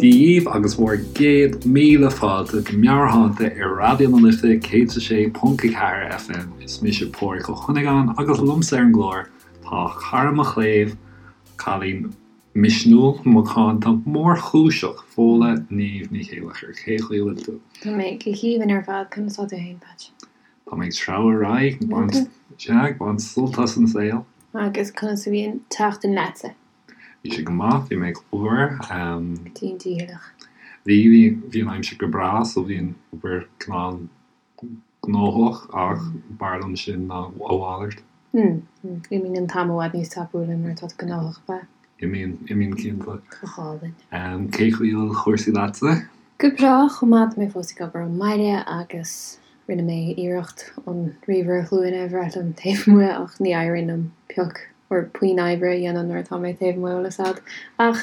Dia dhaoibh agus bhur gcéad míle fáilte go Meabhairshláinte ar Raidió na Life 106.4 FM. Is mise Pádhraic Ó Cuinneagáin agus liomsa ar an gclár tá cara mo chléibh, cailín misniúil, macánta, mórchúiseach, Fódhla Niamh Ní Chéileachair. Cén chaoi a bhfuil tú? Tá mé go haoibhinn ar fad, conas tá tú fhéin, Patch? Tá mé ag treabhadh ar aghaidh, ag baint, sea, ag baint sult as an saol. Agus conas a bhí an tseachtain leatsa? Bhí sé go maith, bhí mé ag obair. Go dian dícheallach. Bhí, bhí, bhí an aimsir go breá so bhí an obair cineál gnóthach ach b'fhearr liom sin ná a mhalairt. Mm, imíonn an t-am i bhfad níos tapúla nuair atá tú gnóthach, ab ea? Imíonn, imíonn cinnte. Go hálainn. Cén chaoi a bhfuil cúrsaí leatsa? Go breá, chomh maith, tá mé fós ag obair ón mbaile agus rinne mé iarracht an ríomhaire glúine a bhreith liom taobh amuigh ach ní éiríonn liom pioc or puinn oibre a dhéanamh nuair atá mé taobh amuigh, bhfuil a fhios a'd. Ach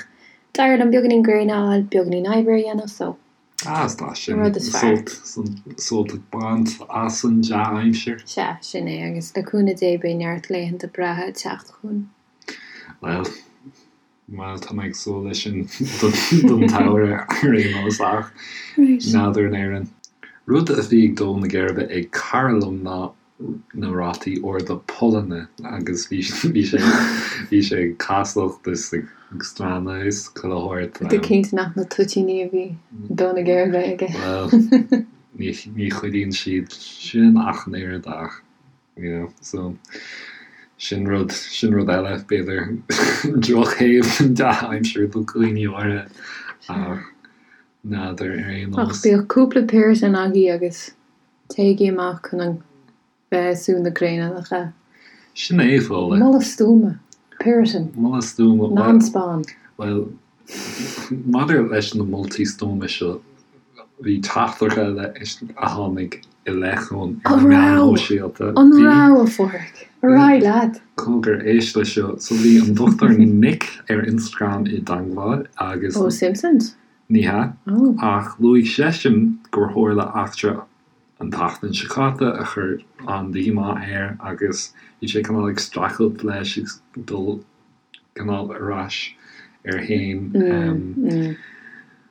d'éirigh liom beagáinín gréine a fháil, beagáinín oibre a dhéanamh so Ah, is tá sin Rud is fearr. sult, sult ag baint as an dea-aimsir. Sea, sin é, agus le cúnamh Dé beidh neart laethanta breátha ag teacht chugainn. Bhuel, bhuel, tá mé ag súil leis sin don tsamhradh ar aon nós ach n'fheadar in Éirinn. Rud a bhí ag dó na geirbe ag cara liom ná na rátaí arda pullainne agus bhí bhí sé bhí sé ag casacht is ag stánadh is chuile shórt. Tú cinnte nach na toitíní a bhí ag dó na geirbe aige? Bhuel, ní ní chuidíonn siad sin ach an oiread ach you know so sin rud sin rud eile b'fhéidir drochthaobh den dea-aimsir do dhaoine áirithe ach n'fheadar ar aon nós. Ach bíodh cúpla Piriton agaibh agus Téigí amach chun an bheith ag sú na gréine, nach ea? Sin é, Fódhla. Moladh stuama. Piriton. Moladh stuama. Non-spawn. Bhuel, maidir leis na moltaí stuama seo, bhí teachtaireacht eile a tháinig i leith chugainn ar na meáin shóisialta. An raibh, a Pháraic? Ar aghaidh leat. Cogar, éist leis seo. So bhí an Dr Nick ar Instagram i dteangmháil agus. Ó Simpsons? Ní hea, ach luaigh seisean gur tharla eachtra an tseachtain seo caite a chuir an-díomá air agus bhí sé cineál ag streachailt leis agus dul cineál ar ais air féin.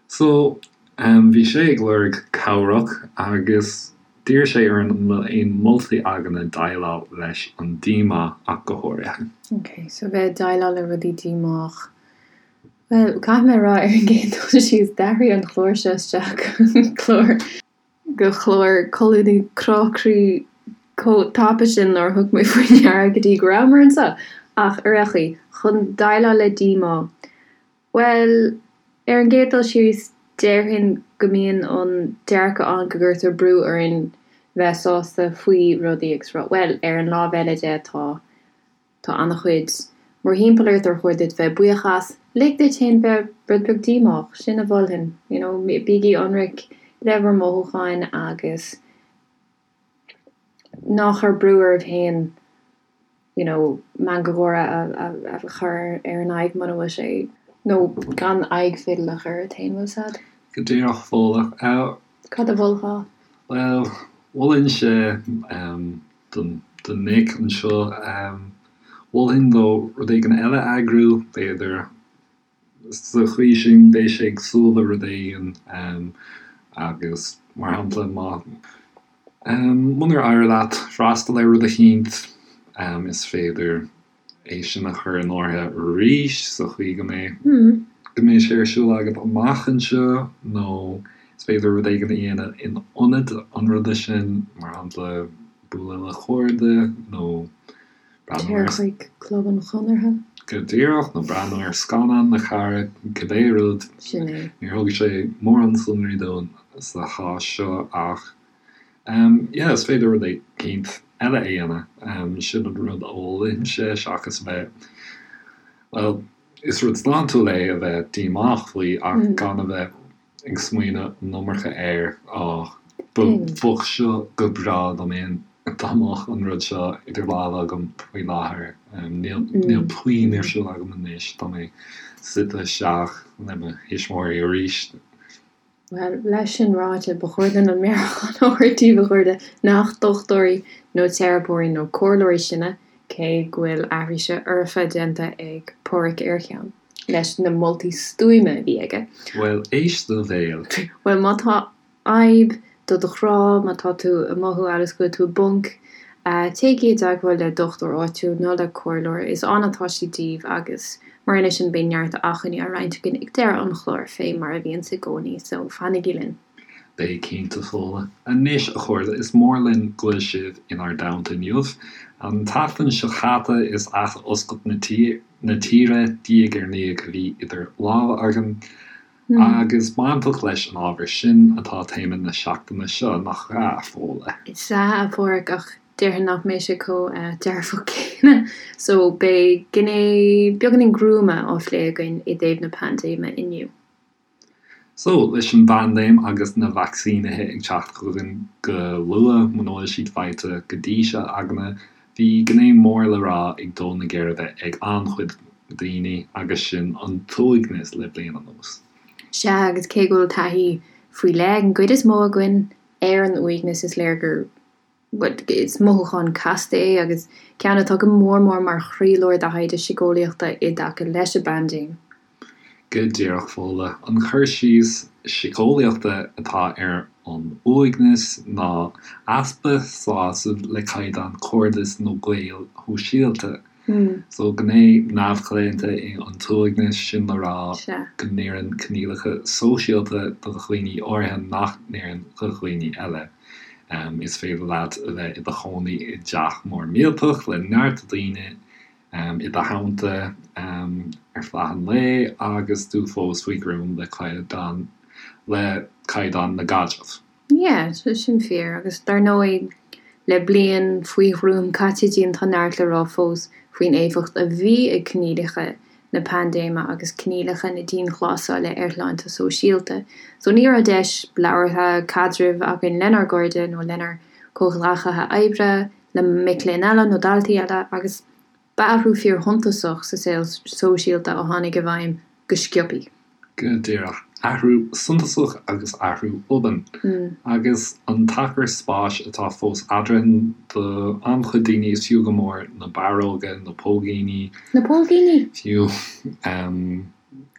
So, bhí sé ag lorg cabhrach agus d'iarr sé orainn an bhfuil aon moltaí againne déileáil leis an díomá ach go háirithe. Ok, so bheith ag déileáil le rudaí díomách. Bhuel, caithfidh mé a rá ar an gcéad dul síos, d'athraigh an clár seo isteach go clár, go clár colúnaí crá croí chomh tapa sin nár thug mé faoi ndeara go dtí go rabhamar anseo. Ach ar aon chaoi, chun déileáil le díomá, bhuel, ar an gcéad dul síos, déarfainn go mbíonn an dearcadh ann go gcuirtear brú orainn bheith sásta faoi rudaí agus rá, bhuel, ar an lámh eile de, tá. Tá an-chuid mórthimpeall ort ar chóir duit bheith buíoch as. Lig duit féin bheith rud beag díomách, sin a mholfainn. You know, bígí ionraic le bhur mothúcháin agus ná cuir brú oraibh féin you know, meangadh gáire a chur ar an aghaidh muna bhfuil sé, nó gan aghaidh fidil a chur ort féin, bhfuil 's a'd? Go díreach, Fódhla. Cad a mholfá? Bhuel, mholfainnse don Nick anseo. Mholfainn dó rud éigin eile a eagrú, b'fhéidir. Sa chaoi sin, beidh sé ag súil le rud éigin agus, mar shampla, má, munar éirigh leat freastal ar rud eicínt, is féidir é sin a chur in áirithe arís sa chaoi go mbeidh go mbeidh sé ar siúl agat amach anseo nó is féidir rud éigin a dhéanamh in ionad an ruda sin, mar shampla bualadh le cairde nó breathnú ar. Téir chuig Club an Chonartha. Go díreach, nó breathnú ar scannán le cara, cibé rud. Sin é. Níor thug sé mórán sonraí dúinn sa chás seo ach. Yeah, is féidir rud eicínt eile a dhéanamh. Sin an rud a mholfainnse seachas a bheith, bhuel, is rud sláintiúil é a bheith díomách faoi ach gan a bheith ag smaoineamh an iomarca air, á, bheadh seo go breá dá mbeinn, dá mbeadh an rud seo idir lámha agam faoi láthair. Níl, níl puinn ar siúl agam anois, tá mé suite isteach le mo thuismitheoirí arís. Bhuel, leis sin ráite, ba chóir dúinn an meabhrúchán a thabhairt daoibh, a chairde, nach dochtúirí nó teiripeoirí nó comhairleoirí sinne, cé go bhfuil aithris fhoirfe déanta ag Páraic ar cheann. leis na moltaí stuama a bhí aige. Bhuel, éist do bhéal. Bhuel, má tá fhadhb do do chrá, má tá tú ag mothú amhail is go bhfuil tú i bponc, téigí i dteagmháil le dochtúir áitiúil nó le comhairleoir, is ann atá siad daoibh agus mar aon leis sin beidh neart acmhainní á roinnt againn ag deireadh an chláir fé mar a bhíonns i gcónaí, so fanaigí linn. Beidh cinnte, Fódhla. Anois, a chairde, is mór linn go bhfuil sibh inár dteannta inniu. An tseachtain seo caite is ath-oscailt na tíre diaidh ar ndiaidh a bhí idir lámha againn. Agus bainteach leis an ábhar sin atá téama na seachtaine seo, nach ea, a Fódhla? Is ea, a Pháraic, ach déarfainn nach mbeidh sé chomh dearfach céanna. So, beidh gné beagáinín gruama á phlé againn i dtaobh na paindéime inniu. So, leis an bpaindéim agus na vacsaínithe ag teacht chugainn go luath, muna bhfuil siad faighte go dtí seo againne, bhí gné mór le rá ag dó na geirbe ag an-chuid daoine agus sin an t-uaigneas le bliain anuas. Sea, agus cé go bhfuil taithí faoi leith ag an gcuid is mó againn ar an uaigneas, is léir gur, bhuel, is mothúchán casta é agus ceann atá go mór mór mar chroílár de thaighde síceolaíochta i dtaca leis an bpaindéim. Go díreach, Fódhla. An cur síos síceolaíochta atá ar an uaigneas ná easpa sásaimh le caighdeán cairdis nó gaoil shóisialta. So, gné neamhchlaonta é an t-uaigneas, sin le rá go n-oireann coinníollacha sóisialta do dhaoine áirithe nach n-oireann do dhaoine eile. Is féidir leat a bheith i do chónaí i dteach mór millteach le neart daoine i do theannta ar feadh an lae agus tú fós faoi ghruaim le caighdeán le caighdeán na gcaidreamh. Yeah, sin fíor. Agus dar ndóigh, le bliain faoi ghruaim caite dínn tá neart le rá fós faoin éifeacht a bhí ag coinníollacha na paindéime agus coinníollacha na dianghlasála ar shláinte sóisialta. So ní raibh deis labhartha, caidrimh againn lenár gcairde nó lenár comhghleacaithe oibre, le mic léinn eile nó daltaí eile agus ba athrú fíorshuntasach sa saol sóisialta a tháinig i bhfeidhm go sciobthaí. Go díreach. Athrú suntasach agus athrú obann. Agus an t-achar spáis atá fós eadrainn do an-chuid daoine is fiú go mór na barróga, na póigíní. Na póigíní! Fiú.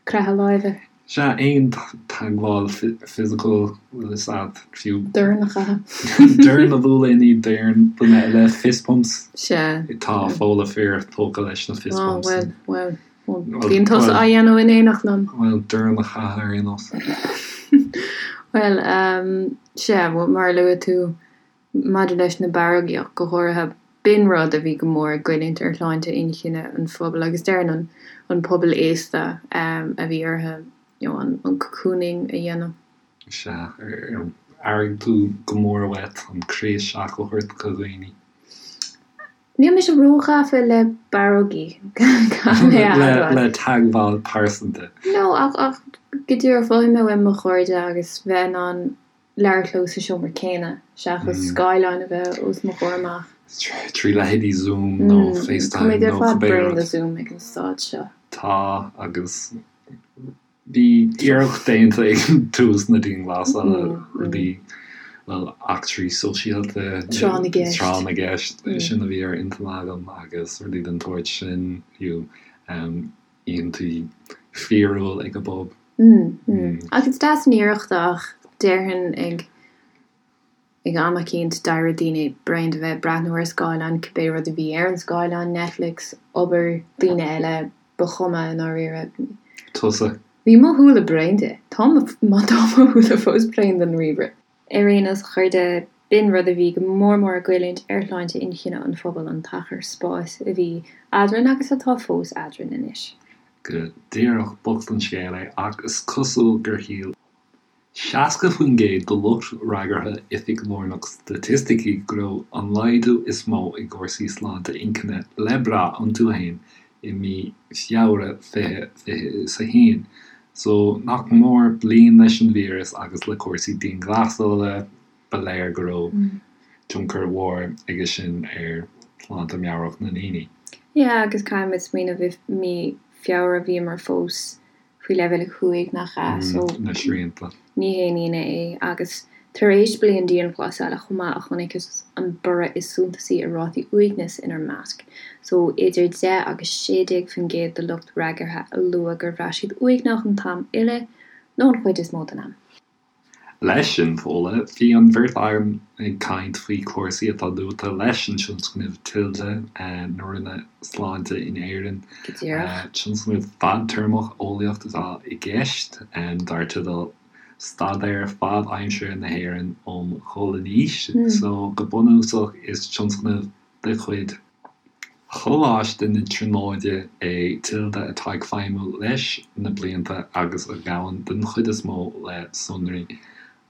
Croitheadh láimhe. Sea, aon teagmháil fisiciúil, bhfuil fhios a'd, fiú. Dorn a chaitheamh. Dorn a bhualadh i ndiaidh doirn duine eile, fist bumps. Sea. Tá Fódhla fíor tógtha leis na fist bumps. Á, bhuel, bhuel. Bíonn tusa á dhéanamh in éineacht liom. Bhuel, dorn a chaitheamh ar aon nós. Bhuel, sea, mar a luaigh tú, Maidir leis na barrógaí ach go háirithe, b'in rud a bhí go mór ag goilliúint ar shláinte inchinne an phobail agus déarfainn an an pobal aosta a bhí orthu you know an an cocooning a dhéanamh. Sea, ar airigh tú go mór uait an croí isteach a thabhairt do dhaoine? Níl mise róghafa le barrógaí, caithfidh mé a admháil. Le teagmháil pearsanta. No, ach ach go díreach mhothaigh mé uaim mo chairde agus bheith in ann labhairt leo sa seomra céanna seachas scáileán a bheith os mo chomhair amach. Trí leithéidí Zoom nó FaceTime Táimid ar nó fad cibé bréan rud. de Zoom ag an staid seo. Tá, agus bhí iarracht déanta ag tús na dianghlasála rudaí, bhuel, eachtraí sóisialta, Tráth na gceist. tráth na gceist, sin a bhí ar intinn agam agus rudaí den tsórt sin, fiú. oícheantaí fíorúil ag an bpub. Ach is deas an iarracht ach déarfainn ag ag am eicínt d'éirigh daoine bréan de bheith ag breathnú ar scáileán, cibé rud a bhí ar an scáileán, Netflix, obair, daoine eile, ba chuma i ndáiríre. Tusa. Bhí mo shúile bréan de. Tá mo tá mo shúile fós bréan den ríomhaire. Ar aon nós, a chairde, b'in rud a bhí go mór mór ag goilliúint ar shláinte inchinne an phobail, an t-achar spáis a bhí eadrainn agus atá fós eadrainn anois. Go díreach, bocht an scéal é, ach is cosúil gur shíl 60% de lucht fhreagartha Oifig Lárnach Staitisticí go raibh an laghdú is mó i gcúrsaí sláinte inchinne le brath iontu féin i mí Feabhra 2021. So, nach mór bliain leis an víreas agus le cúrsaí dianghlasála, ba léir go raibh tionchar mhór aige sin ar shláinte meabhrach na ndaoine. Yeah, agus caithfimid smaoineamh i mí Feabhra bhíomar fós faoi leibhéal 5, nach ea? So, Na srianta. ní haon ionadh é agus. Tar éis bliain dianghlasála chomh maith a chonacthas an borradh is suntasaí i rátaí uaignis inár measc, so idir 10 agus 16% de lucht freagartha a luaigh gur bhraith siad uaigneach an t-am uile nó an chuid is mó den am. Leis sin, Fódhla, bhí an bheirt againn ag caint faoi chúrsaí atá luaite leis an tionscnamh Tilde na Roinne Sláinte in Éirinn. Go díreach. Tionscnamh fadtéarmach eolaíocht atá i gceist, dar teideal Staidéar Fad-Aimseartha na hÉireann um Dhul in Aois. So, go bunúsach, is tionscnamh de chuid Choláiste na Tríonóide é Tilde atá ag feidhmiú leis na blianta agus a ghabhann den chuid is mó le sonraí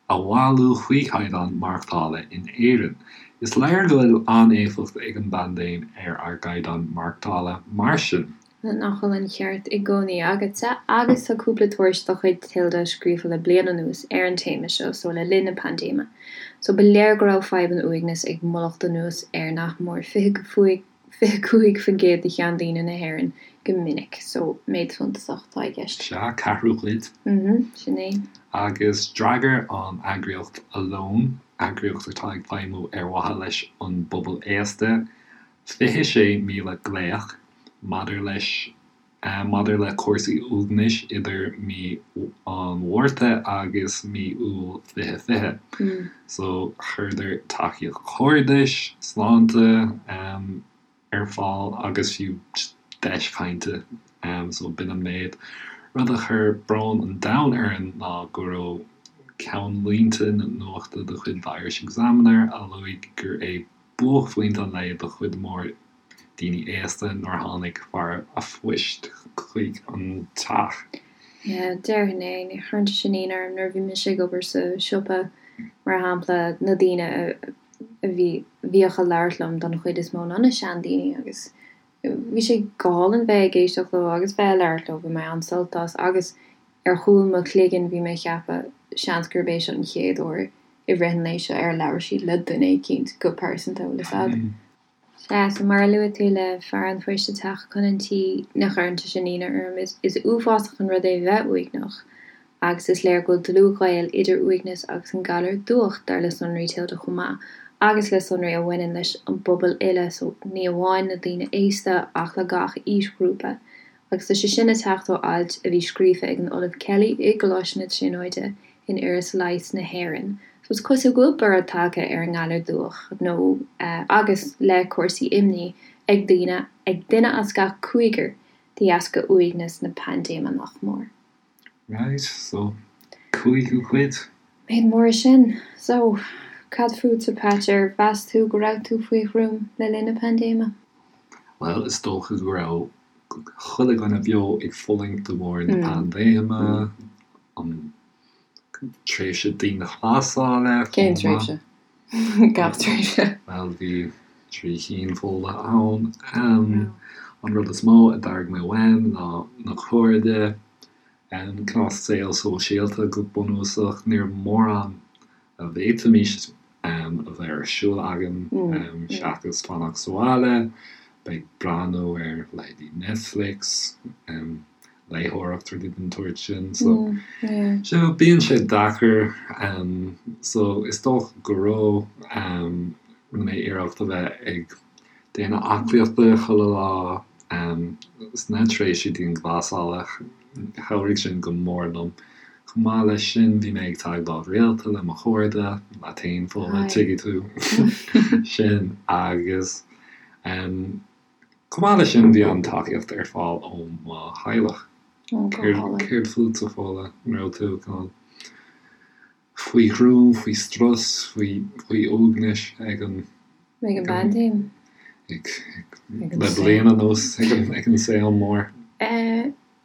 a bhailiú faoi chaighdeán maireachtála in Éirinn. Is léir go bhfuil an-éifeacht ag an bpaindéim ar ár gcaighdeán maireachtála, mar sin. Nach bhfuil an ceart i gcónaí agatsa? Agus tá cúpla tuairisc de chuid Tilde scríofa le bliain anuas ar an téama seo, so le linn na paindéime. So ba léir go raibh fadhb an uaignis ag mullacht anuas ar nach mór 25% de sheandaoine na hÉireann go minic. So méid suntasach atá i gceist. Sea, ceathrú cuid. Mhm, sin é. Agus d'fhreagair an eagraíocht Alone, eagraíocht atá ag feidhmiú ar mhaithe leis an bpobal aosta, 26,000 glaoch maidir leis maidir le cúrsaí uaignis idir mí an Mhárta agus mí Iúil 2020. So chuireadar tacaíocht chairdis, sláinte ar fáil agus fiú deis chainte. So b'in an méid. Rud a chuir brón an domhain orainn ná go raibh ceannlínte na nuachta de chuid The Irish Examiner a luaigh gur é buaicphointe an lae do chuid mhór daoine aosta nuair a tháinig fear a' phoist chuig an teach. Yeah, déarfainn é. Ní chuireann sé sin ionadh orm nuair a bhí mise ag obair sa siopa, mar shampla, na daoine a bhí, bhíodh ag labhairt liom don chuid is mó ná na seandaoine agus bhí sé go hálainn bheith ag éisteacht leo agus bheith ag labhairt leo, bhain mé an-sult as agus ar chúl mo chloiginn bhí mé ag ceapadh seans gurb é seo an chéad uair i rith an lae seo ar labhair siad le duine eicínt go pearsanta, bhfuil fhios a'd. Sea, so mar a luaigh tú le fear an phoist ag teacht chun an tí, ní chuireann sé sin ionadh orm. Is is uafásach an rud é bheith uaigneach agus is léir go bhfuil dlúthghaol idir uaigneas agus an galar dubhach, dar le sonraí Tilde chomh maith, agus le sonraí a bhaineann leis an bpobal uile, so ní amháin na daoine aosta ach le gach aoisghrúpa. Agus tá sé sin ag teacht ó ailt a bhí scríofa ag an Ollamh Kelly i gColáiste na Tríonóide in Iris Leighis na hÉireann. So is cosúil go bhfuil borradh tagtha ar an ngalar dubhach nó agus le cúrsaí imní ag daoine, ag duine as gach cúigear de dheasca uaigneas na paindéime nach mór. Right, so cúigiú cuid. Méid mór é sin. So, cad fútsa Patch, ar mheas tú go raibh tú faoi ghruaim le linn na paindéime? Bhuel, is dócha go raibh chuile dhuine beo ag fulaingt de bharr na paindéime, an tréimhse dianghlasála Cén chomh maith. tréimhse? Gach tréimhse. Bhuel, bhí 3 chinn Fódhla ann. An rud is mó a d'airigh mé uaim ná na cairde, cineál saol sóisialta go bunúsach. Ní raibh mórán a bhféadfaimis a bheith ar siúl againn seachas fanacht sa bhaile, bheith ag breathnú ar leithéidí Netflix, léitheoireacht, rudaí den tsórt sin. So, so bíonn sé deacair. So is dócha go raibh, rinne mé iarracht a bheith ag déanamh aclaíochta chuile lá sna tréimhsí dianghlasála. Chabhraigh sin go mór liom. Chomh maith leis sin, bhí mé ag teagmháil rialta le mo chairde, leat féin, Fódhla, tuigfidh tú sin, agus chomh maith leis sin, bhí an-tacaíocht ar fáil ó mo theaghlach. Céard fútsa, Fódhla? An raibh tú cineál faoi ghruaim, faoi strus, faoi faoi uaigneas ag an. Ag an bpaindéim. Ag, ag, le bliain anuas, ag an, ag an saol mór.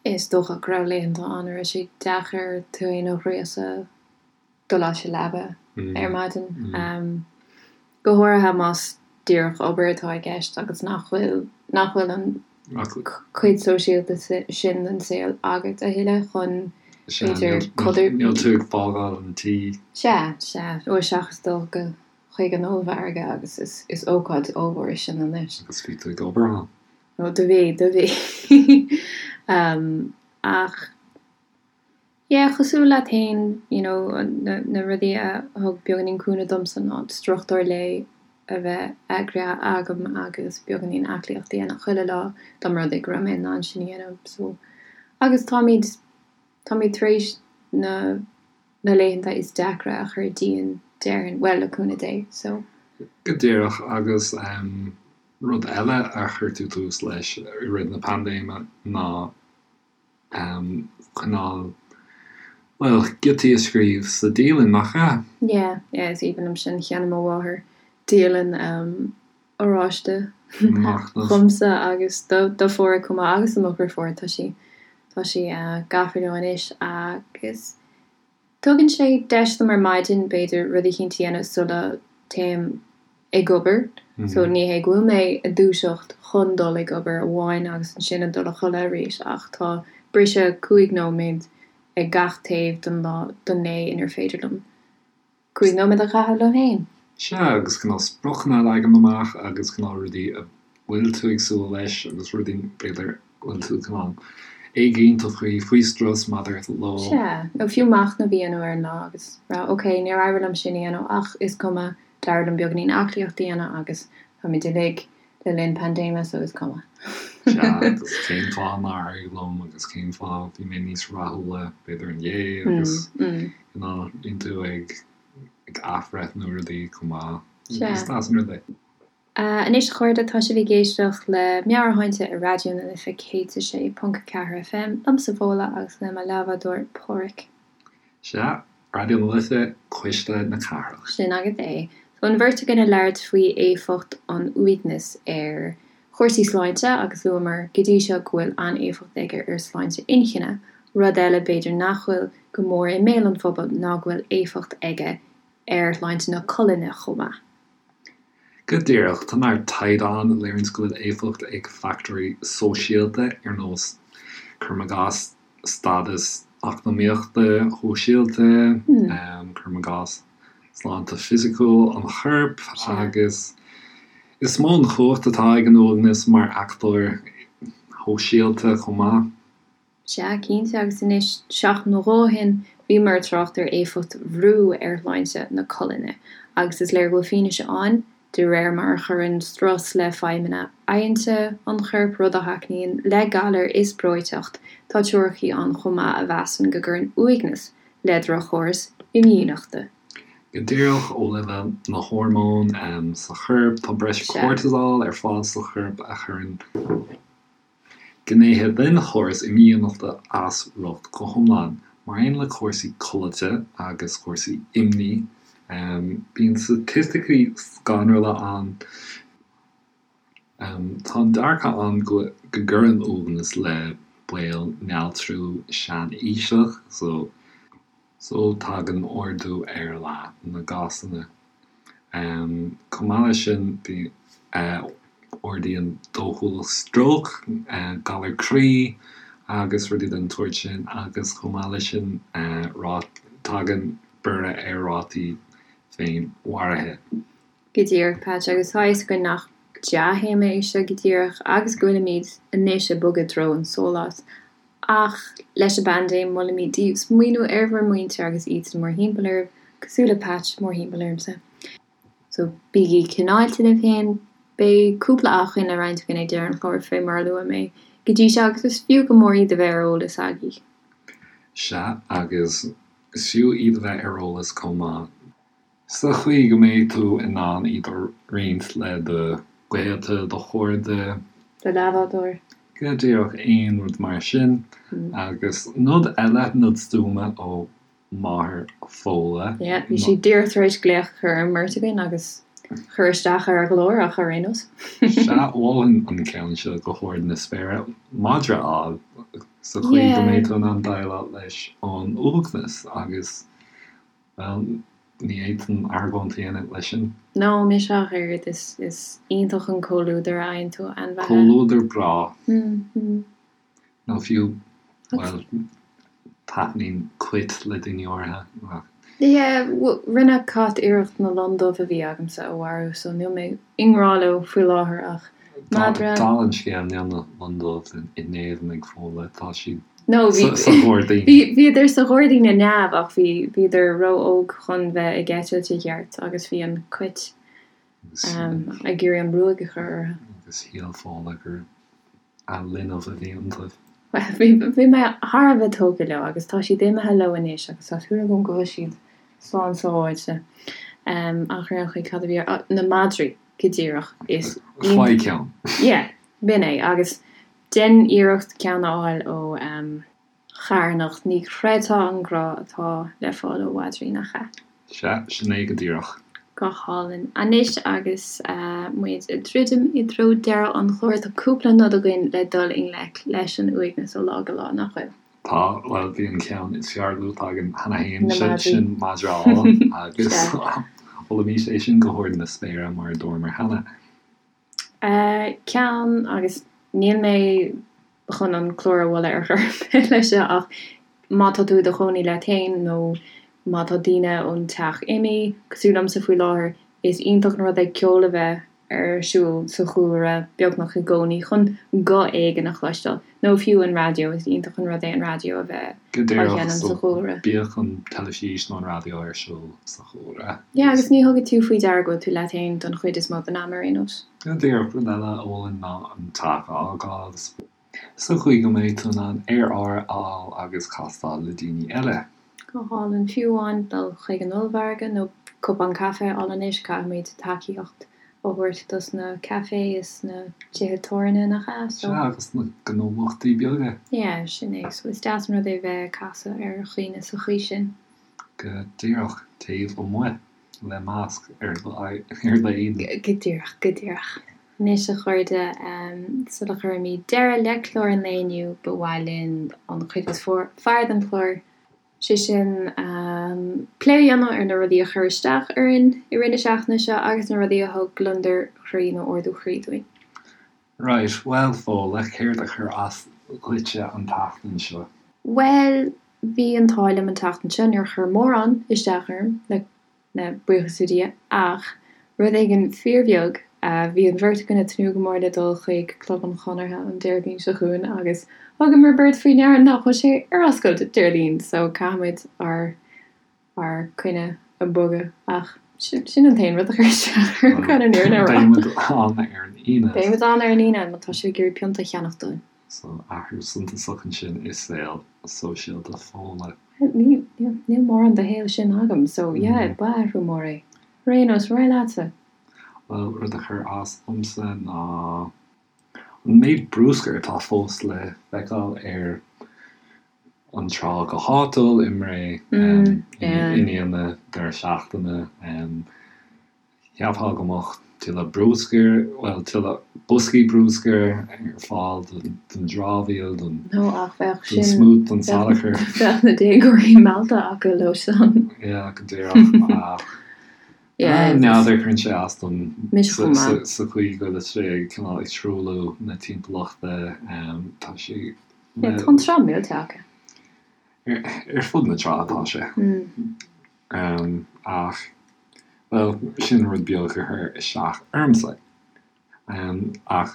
Is dócha go raibh laethanta ann a raibh sé deacair tú féin a ghríosadh dul as an leaba ar maidin. Go háirithe más díreach obair atá i gceist agus nach bhfuil, nach bhfuil an cuid sóisialta sin den saol agat a thuilleadh chun, b'fhéidir, codir. Níl tú ag fágáil an tí. Sea, sea. Ó, seachas dul go chuig an ollmhargadh agus is, is ócáid ollmhór í sin anois. Agus bhí tú ag obair ann. Ó, do bhí, do bhí. Ach. Yeah, cosúil leat féin, you know, na, na rudaí a thug beagáinín cúnamh domsa ná struchtúr lae a bheith eagraithe agam agus beagáinín aclaíocht a dhéanamh chuile lá dá mba rud é go raibh mé in ann sin a dhéanamh. So, agus táimid, táimid tar éis na, na laethanta is deacra a chur dínn, déarfainn, bhuel, le cúnamh Dé, so. Go díreach, agus em, rud eile a chuir tú tús leis i rith na paindéime ná cineál, bhuel, giotaí a scríobh sa dialann, nach ea? Yeah, yeah, is aoibhinn liom sin. Cheannaigh mo mháthair dialann oráiste dhomsa agus do do Pháraic chomh maith agus do mo dhriofúr, tá sí, tá sí gafa leo anois agus Tugann sé deis dom ar maidin, b'fhéidir, rud eicínt a dhéanamh sula dtéim ag obair. So ní hé go bhfuil mé ag dúiseacht chun dul ag obair amháin agus ansin ag dul a chodladh arís ach tá briseadh 5 nóiméad ag gach taobh den lá, den lae inar féidir liom 5 nóiméad a chaitheamh liom féin. Sea, agus cineál spriocanna a leagan amach agus cineál rudaí a bhfuil tú ag súil leis agus rudaí, b'fhéidir, go bhfuil tú cineál éiginnte faoi, faoi strus maidir leo. Sea, nó fiú machnamh a dhéanamh ar an lá agus rá, ok, níor éirigh liom sin a dhéanamh ach is cuma, d'éirigh liom beagáinín aclaíocht a dhéanamh agus táimid uilig le linn paindéime so is cuma. Sea, agus cén fáth nár éirigh liom agus cén fáth bhí mé níos rathúla b'fhéidir inné agus you know, bíonn tú ag ag athbhreithniú rudaí chomh maith. Sea. Is deas an rud é. Anois a chairde, tá sibh ag éisteacht le Meabhairshláinte ar Raidió na Life 106.4 FM, liomsa Fódhla agus le mo leathbhádóir Páraic. Sea, Raidió na Life, Cuisle na Cathrach. Sin agat é. So an bheirt againn ag labhairt faoi éifeacht an uaignis ar chúrsaí sláinte agus luamar go dtí seo go bhfuil an-éifeacht aige ar sláinte inchinne. Rud eile b'fhéidir nach bhfuil go mór i mbéal an phobail ná go bhfuil éifeacht aige ar shláinte na colainne chomh maith. Go díreach, tá neart taighde ann a léiríonns go bhfuil éifeacht ag fachtóirí sóisialta ar nós, cuirim i gcás, stádas eacnamaíochta, shóisialta, cuirim i gcás, sláinte fisiciúil an choirp agus is mó an chumhacht atá ag an uaigneas mar fhachtóir shóisialta chomh maith. Sea, cinnte, agus anois, seachtain nó dhó ó shin, bhíomar ag trácht ar éifeacht bhrú ar shláinte na colainne, agus is léir go bhfuil fianaise ann, de réir mar a chuireann strus le feidhmeanna adhainte an choirp, rud a thacaíonn le galair is breoiteacht, tá teoiricí ann chomh maith a mheasann go gcuireann uaigneas le droch-chóras imdhíonachta. Go díreach, ó leibhéal na hormón sa chorp, tá breis cortisol ar fáil sa chorp a chuireann. Gnéithe den chóras imdhíonachta as riocht go hiomlán, mar aon le cúrsaí codlata agus cúrsaí imní. Bíonn staitisticí scanrúla ann. Tá an dearcadh ann go gcuireann uaigneas le baol néaltrú sean-aoiseach, so tagann ardú ar leath na gcásanna. Chomh maith leis sin, ardaíonn dóchúlacht stróc, galar croí agus rudaí den tsórt sin agus chomh maith leis sin tagann borradh ar rátaí féinmharaithe. Go díreach, Patch, agus tá a fhios againn nach dea-théama é seo go díreach agus go bhfuilimid anois ag bogadh i dtreo an sóláis. Ach leis an bpaindéim, molaimid daoibh smaoineamh ar bhur muintir agus iadsan mórthimpeall oraibh, cosúil le Patch mórthimpeall ormsa. So, bígí cineálta libh féin. Beidh cúpla acmhainn le roinnt againn ag deireadh an chláir, fé mar a luaigh mé go dtí seo, agus is fiú go mór iad a bheith ar eolas agaibh. Sea, agus is fiú iad a bheith ar eolas chomh maith. Sa chaoi go mbeidh tú in ann iad a roinnt le do ghaolta, do chairde. Do leathbhádóir. Go díreach, aon rud mar sin. Agus nod eile, nod stuama ó mháthair Fódhla. Yeah, bhí sí díreach tar éis glaoch a chur ar an mbeirt againn agus cur isteach ar a ghlór ach ar aon nós. Sea, mholfainn an ceann seo go hard na spéire, madra a fháil, sa chaoi go mbeidh tú in ann déileáil leis an uaigneas agus. Bhuel, ní fhéadfainn argóint a dhéanamh leis sin. No, mise ach oiread. Is, is iontach an comhluadar a fhaigheann tú ó ainmhithe. Comhluadar breá. Nó fiú, bhuel, taitníonn cait le daoine áirithe, ach. Yeah, rinne cat iarracht na lon dubh a bhí agamsa a mharú, so níl mé i ngrá leo faoi láthair ach madra. Dála an scéil, níl na lon dubh in éadan ag Fódhla, tá siad. No, bhí, Sa ghairdín. bhí, bhíodar sa ghairdín i neamh ach bhí, bhíodar ró-óg chun bheith ag eitilt i gceart agus bhí an cait ag iarraidh an ruaig a chur orthu. Agus shíl Fódhla gur a linbh a bhí iontu. Bhuel, bhí, bhí mé thar a bheith tógtha leo agus tá siad imithe leo anois agus tá súil agam go bhfuil siad slán sábháilte. Ach ar aon chaoi, cad a bhí ar, na madraí, go díreach, is Faigh ceann. Yeah, b'in é. Agus Déan iarracht ceann a fháil ó charthanacht, ní chreidfeá an grá atá le fáil ó mhadraí, nach ea? Sea, sin é go díreach. Go hálainn. Anois agus muid ag druidim i dtreo deireadh an chláir, tá cúpla nod againn le dul i ngleic leis an uaigneas ó lá go lá, nach bhfuil? Tá, bhuel, bhí an ceann is fearr luaite againn cheana féin, sé sin madra a fháil, agus mholaimis é sin go hard na spéire, mar a dúramar cheana. Ceann, agus níl mé chun an clár a mholadh ar chor ar bith leis seo ach má tá tú i do chónaí leat féin nó má tá daoine ón teach imithe, cosúil liomsa faoi láthair, is iontach an rud é ceol a bheith ar siúl sa chúlra beagnach i gcónaí chun guth éigin a chloisteáil. Nó fiú an raidió, is iontach an rud é an raidió a bheith Go á díreach, sheinm so sa chúlra. bíodh an teilifís nó an raidió ar siúl sa chúlra. Yeah, agus ní thugann tú faoi deara go bhfuil tú leat féin don chuid is mó den am ar aon nós. Go díreach, rud eile a mholfainn ná an teach a fhágáil sa chaoi go mbeidh tú in ann aer úr a fháil agus castáil le daoine eile. Go hálainn. Fiú amháin dul chuig an ollmhargadh nó cupán caife a fháil anois, caithfimid tacaíocht a thabhairt dos na caifé is na tithe tábhairne, nach ea? So. Sea, agus na gnólachtaí beaga. Yeah, sin é. So is deas an rud é bheith ag casadh ar dhaoine sa chaoi sin. Go díreach, taobh amuigh, le masc ar d'éadan. Go díreach, go díreach. Anois, a chairde, sula gcuirimid deireadh le clár an lae inniu, ba mhaith linn an chuid is fearr den chlár, sé sin, plé a dhéanamh ar na rudaí a chuir isteach orainn i rith na seachtaine seo agus na rudaí a thug gliondar chroí nó ardú croí dúinn. Right, bhuel, Fódhla, céard a chuir as dhuitse an tseachtain seo? Bhuel, bhí an t-ádh liom an tseachtain seo, níor chuir mórán isteach orm, le le buíochas le Dia, ach rud éigin fíorbheag, bhí an bheirt againn ag tnúth go mór le dul chuig Club an Chonartha an Déardaoin seo chugainn agus thugamar beirt faoi ndeara nach bhfuil sé ar oscailt Déardaoin so caithfimid ár ár coinne a bhogadh ach sin an t-aon rud a chuir isteach orm chun an fhírinne a rá. Beidh muid ann ar an Aoine. Beidh muid ann ar an Aoine má tá sibh ag iarraidh pionta a cheannach dúinn. So athrú suntasach ansin i saol sóisialta Fódhla. Níl, níl mórán de shaol sin agam, so yeah, ba athrú mór é. Ar aon nós, ar aghaidh leatsa. Bhuel, rud a chuir as domsa ná an méid bruscair atá fós le feiceáil ar an trá go háitiúil i mBré i ndiaidh na deireadh seachtaine. Cheapfá go mbeadh tuilleadh bruscair, bhuel, tuilleadh boscaí bruscair ar fáil don dramhaíl, don No, ach bheadh sin, smúit, don salachar. Bheadh na déagóirí meallta acu leo san. Yeah, go díreach, ach n'fheadar, cuireann sé as dom Mise chomh maith. sa chaoi go bhfuil sé cineál ag truailliú na timpeallachta, tá sé. Yeah, tá an trá millte acu. Ar fud na trá atá sé. Ach, bhuel, sin rud beag a chuir isteach ormsa. Ach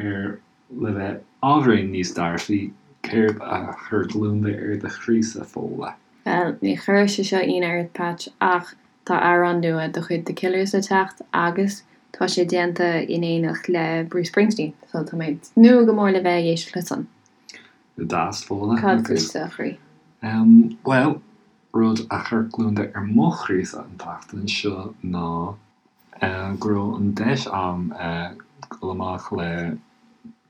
ar le bheith ábhairín níos dearfaí, céard a chuir gliondar ar do chroísa, Fódhla? Bhuel, ní chuirfidh sé seo ionadh ort, Patch, ach tá amhrán nua de chuid The Killers le teacht agus tá sé déanta in éineacht le Bruce Springsteen, so tá mé ag tnúth go mór le bheith ag éisteacht leis san. Go deas, Fódhla. Cad fútsa, a chroí? Bhuel, rud a chuir gliondar ar mo chroísa an tseachtain seo ná go raibh an deis a'm dul amach le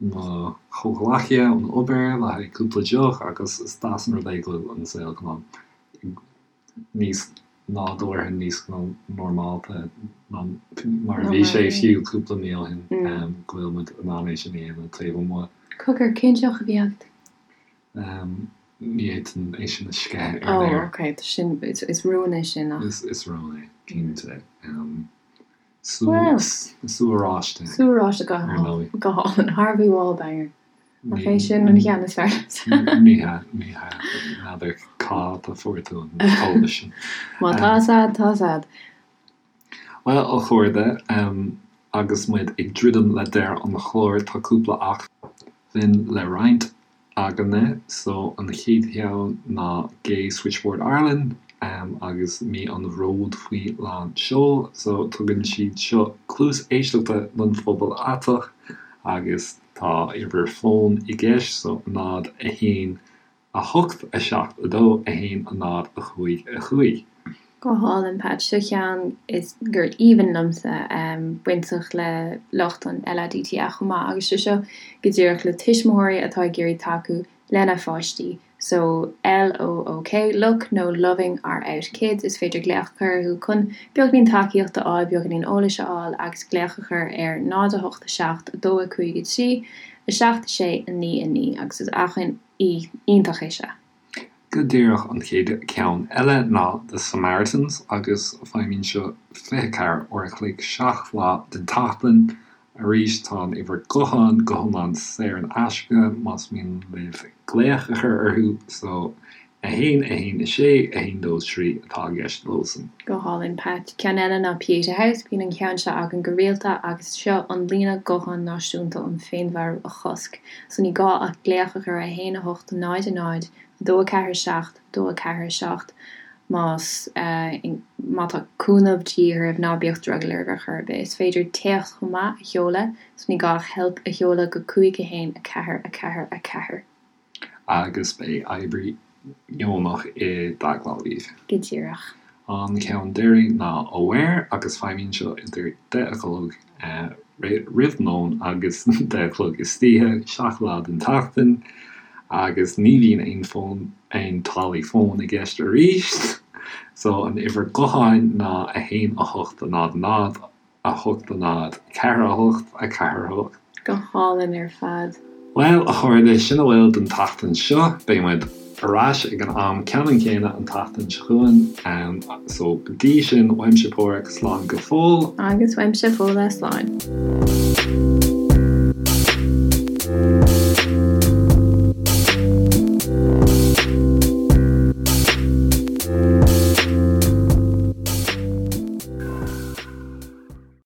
mo chomhghleacaithe ón obair le haghaidh cúpla deoch agus is deas an rud é go bhfuil an saol cineál níos nádúrtha, níos normálta ná mar a bhí sé fiú cúpla mí ó shin, go bhfuil muid in ann é sin a dhéanamh taobh amuigh. Cogar, cén deoch a bhí agat? Ní fhéadfainn é sin a sceitheadh ar an aer. Oh, ok, sin, is rún é sin ach. Is rún é, cinnte. Sú, sú oráiste. Sú oráiste go hálainn. Go hálainn. Harvey Wallbanger. Nach é sin an ceann is fearr liomsa? Ní hea, ní hea. N'fheadar cá fhad a fuair tú an t-eolas sin. Má tá 's a'd, tá 's a'd. Bhuel, a chairde, agus muid ag druidim le deireadh an chláir, tá cúpla acmhainn le roinnt. againne. So an chéad cheann ná Gay Switchboard Ireland agus mí an bhróid faoi lán seoil. So tugann siad seo cluas éisteachta don phobal aiteach agus tá uimhir fóin i gceist so 0, 1, 8, 7, 2, 1, 0, 5, 5. Go hálainn, Pat. Seo ceann is gur aoibhinn liomsa, bainteach le lucht an LADTA chomh maith, agus sé seo go díreach le tuismitheoirí atá ag iarraidh tacú lena pháistí. So, LOOK, Look, nó Loving Our Out Kids, is féidir glaoch a chur orthu chun beagáinín tacaíochta a fháil, beagáinín eolais a fháil agus glaoch a chur ar 0 8 7 2 5 3 7 6 9 9 agus is acmhainn iontach é seo. Go díreach an chéad ceann eile ná The Samaritans agus feidhmíonn seo 24 uair a chloig 7 lá den tseachtain. Arís tá an uimhir gutháin go hiomlán saor in aisce más mian libh glaoch a chur orthu so 1 1 6 1 2 3 atá i gceist leosan. Go hálainn, Pat. Ceann eile ná Pieta House, bíonn an ceann seo againn go rialta agus seo an líne gutháin náisiúnta um féinmharú a chosc. So ní gá ach glaoch a chur ar 1 8 0 0 2 4 7 2 4 7 más má tá cúnamh de dhíth oraibh, ná bíodh drogall oraibh ar chor ar bith. Is féidir téacs chomh maith a sheoladh, so ní gá ach help a sheoladh go 5 1 4 4 4. Agus beidh oibrí deonach i dteagmháil libh. Go díreach. An ceann deiridh ná Aware agus feidhmíonn seo idir 10 a chlog roimh lón agus 10 a chlog istoíche, 7 lá den tseachtain, agus ní bhíonn aon fón, aon táillí fóin i gceist arís. So an uimhir gutháin ná 1 8 0 0. 8 0 4 8 4 8. Go hálainn ar fad. Bhuel, a chairde, sin a bhfuil don tseachtain seo. Beidh muid ar ais ag an am ceannann céanna an tseachtain seo chugainn. So, go dtí sin, uaimse Páraic, slán go fóill. Agus uaimse Fódhla, slán.